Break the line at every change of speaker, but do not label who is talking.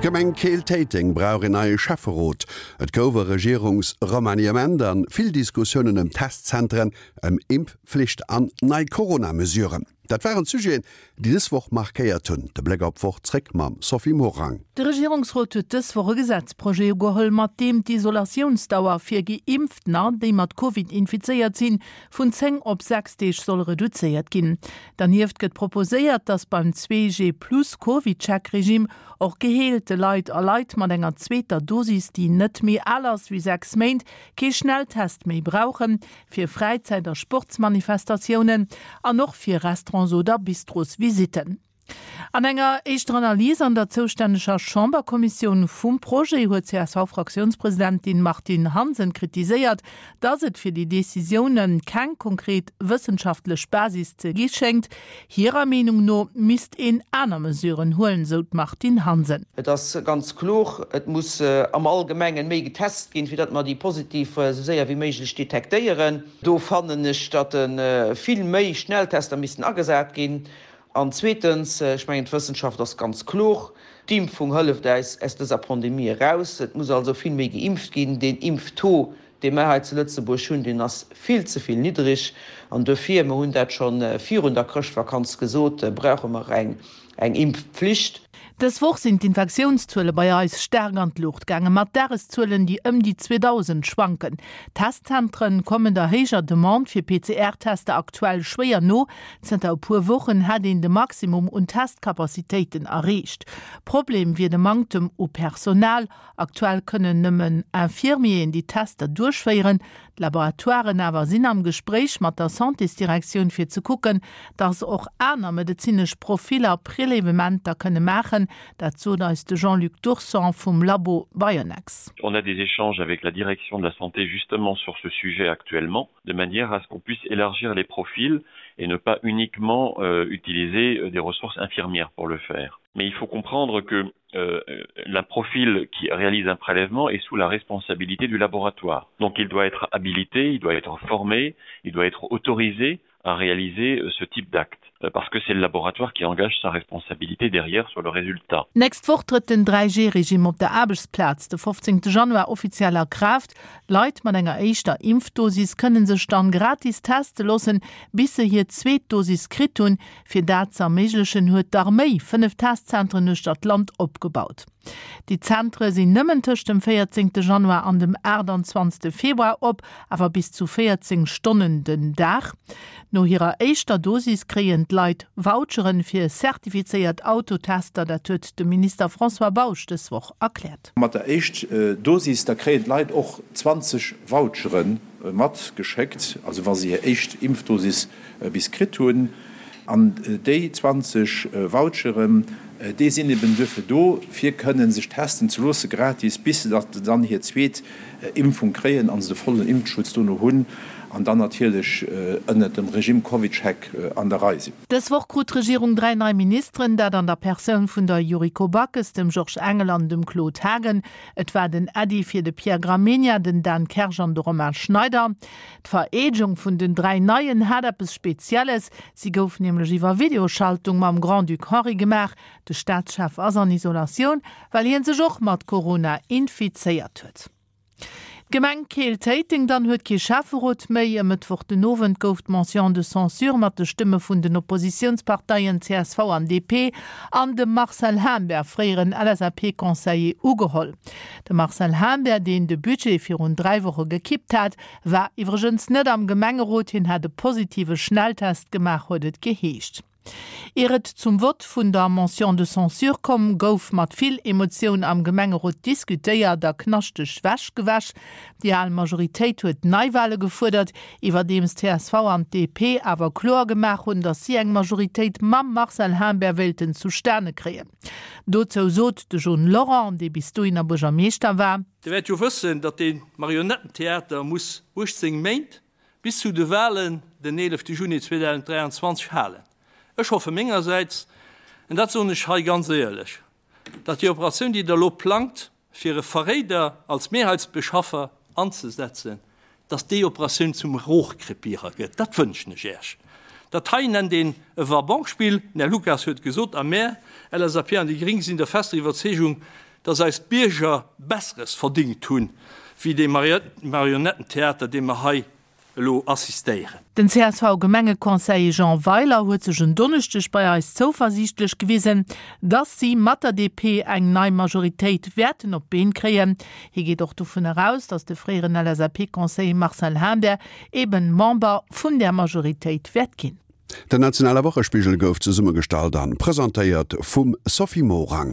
D'Gemeng Keel-Téiteng brauch een neie Schäfferot. Et gouf e Regierungsremaniement an vill Diskussiounen ëm Testzentren, ëm Impfflicht an nei Corona-Mesuren. Dat waren d'Sujeten, déi dës Woch markéiert hunn. De Bléck op d'Woch zréck mam Sophie Morang.
De Regierungsrot huet dës Woch e Gesetzprojet ugeholl, mat deem d'Isolatiounsdauer fir Geimpftener, déi mat Covid infizéiert sinn, vun 10 op 6 Deeg soll reduzéiert ginn. Dernieft gëtt proposéiert, datt beim 2G-plus-CovidCheck-Regime och geheelte Leit a Leit mat enger zweeter Dosis, déi net méi al ass wéi 6 Méint, kee Schnelltest méi brauchen. fir Fräizäit a Sportsmanifestatiounen an och fir Restaurants oder Bistrosvisitten. An enger éischter Analys an der zoustänneger Chamberkommissioun vum Projet huet d'CSV-Fraktiounspresidentin Martine Hansen kritiséiert, datt et fir déi Decisioune keng konkret wëssenschaftlech Basis ze gi schéngt. Hirer Meenung no misst een aner Mesuren huelen, sou d'Martine Hansen.
Et ass ganz kloer, et muss am Allgemengen méi getest ginn, fir datt mer déi Positiv esou séier wéi méiglech detektéieren. Do fannen ech, datt vill méi Schnelltester missten agesat ginn. An zweetens, ech mengen d'Wëssenschaft ass ganz kloer, d'Impfung hëlleft äis aus dëser Pandemie eraus. Et muss also vill méi geimpft ginn. Deen Impftaux, dee mer hei zu Lëtzebuerg hunn, deen ass vill ze vill niddreg. An duerfir, mer hunn dat scho virun der Chrëschtvakanz gesot, brauche mer eng Impfpflicht.
Dës Woch sinn d'Infektiounszuele bei eis staark an d'Luucht gaangen, mat Dageszuelen, déi ëm déi 2.000 schwanken. D'Testzentre kommen der héijer Demande fir PCR-Tester aktuell schwéier no. Zënter e puer Wochen hätt een de Maximum un Testcapacitéiten erreecht. Problem wier de Manktem u Personal. Aktuell kënnen nëmmen Infirmieren déi Tester duerchféieren. D'Laboratoiren awer sinn am Gespréich mat der Santésdirektioun fir ze kucken, datt och aner medezinesch Profiller Prélèvementer kënne maachen. Dat sot eis de Jean-Luc Dourson vum Labo Bionex.
On a des échanges avec la direction de la santé justement sur ce sujet actuellement, de manière à ce qu'on puisse élargir les profils et ne pas uniquement euh, utiliser euh, des ressources infirmières pour le faire. Mais il faut comprendre que euh, la profil qui réalise un prélèvement est sous la responsabilité du laboratoire. Donc il doit être habilité, il doit être formé, il doit être autorisé à réaliser euh, ce type d'acte euh, parce que c'est le laboratoire qui engage sa responsabilité derrière sur le résultat.
D'nächst Woch trëtt den 3G-Regime op der Aarbechtsplaz de 15 Januar offiziell a Kraaft. Leit mat enger éischter Impfdosis kënne sech dann gratis teste loossen, bis se hir zweet Dosis kritt hunn. Fir dat ze erméiglechen, huet d'Arméi 5 Testzentren uechter d'Land opgebaut. Déi Zentre sinn nëmmen tëscht dem 14 Januar an dem 28 Februar op, awer bis zu 14 Stonnen den Dag. No hirer éischter Dosis kréien d'Leit Voucheren fir zertifizéiert Autotester, dat huet de Minister François Bausch dës Woch erkläert.
Mat der éischt Dosis, da kréien d'Leit och 20 Vouchere matgeschéckt, also wa se hir éischt Impfdosis bis kritt hunn. An déi 20 Voucheren, déi sinn eben duerfir do, fir kënnen sech testen ze loosse gratis, bis se dann hir zweet Impfung kréien a se de vollen Impfschutz dono hunn an dann natierlech ënnert dem Regime CovidCheck an der Rei sinn.
Dës Woch krut d'Regierung 3 nei Ministeren, dat an der Persoun vun der Yuriko Backes, dem Georges Engel an dem Claude Haagen. Et war den Äddi fir de Pierre Gramegna, den Dan Kersch an de Romain Schneider. D'Vereedegung vun den 3 Neien hat eppes Spezielles, si gouf nämlech iwwer Videoschaltung mam Grand-Duc Henri gemaach. De Staatschef ass an Isolatioun, well hien sech och mat Corona infizéiert huet. D'Gemeng Keel-Téiteng dann huet kee Schäfferot méi. E Mëttwoch den Owend gouf d'Motion de censure mat de Stëmme vun den Oppositiounsparteien csv an DP an dem Marcel Humbert, fréieren LSAP-Conseiller, ugeholl. De Marcel Humbert, deen de Budget virun 3 Woche gekippt hat, war iwwregens net am Gemengerot. Hien hat e positive Schnelltest gemaach, huet et geheescht. Ier et zum Vott vun der Motion de censure komm, gouf mat vill Emotioun am Gemengerot diskutéiert a knaschteg Wäsch gewäsch. Déi al Majoritéit huet Neiwale gefuerdert, iwwerdeems csv an d'DP awer kloer gemaach hunn, datt si eng Majoritéit mam Marcel Humbert wéilten zustane kréien. Dozou sot de John Lorent, dee bis dohinner Buergermeeschter war.
Dir wäert jo wëssen, datt dee Marionettentheater muss 18 Méint, bis zu de Wahlen den 11 Juni 2023, halen. Ech hoffe mengersäits, en dat soen ech hei ganz éierlech, datt déi Operatioun, déi Der elo plangt, fir e Verréider als Mehrheitsbeschaffer anzesetzen, dass déi Operatioun zum Rohrkrepierer gëtt. Dat wënschen ech Äech. Dat hei nennt een e Va-banque-Spill. Den Här Lucas huet gesot, a mär, LSAP an déi Gring, sinn der fester Iwwerzeegung, dass eis Bierger Besseres verdingt hunn, wéi dee Marionettentheater, deem mer hei elo assistéieren.
Den CSV-Gemengeconseiller Jean Weiler huet sech en Donneschdeg bei eis zouversiichtlech gewisen, dass si mat der DP eng nei Majoritéit wäerten op d'Been kréien. Hie geet och dovun eraus, dass de fréieren LSAP-Conseiller Marcel Humbert eben Member vun där Majoritéit wäert ginn.
Den nationale Wochespigel gouf zesummegestallt an presentéiert vum Sophie Morang.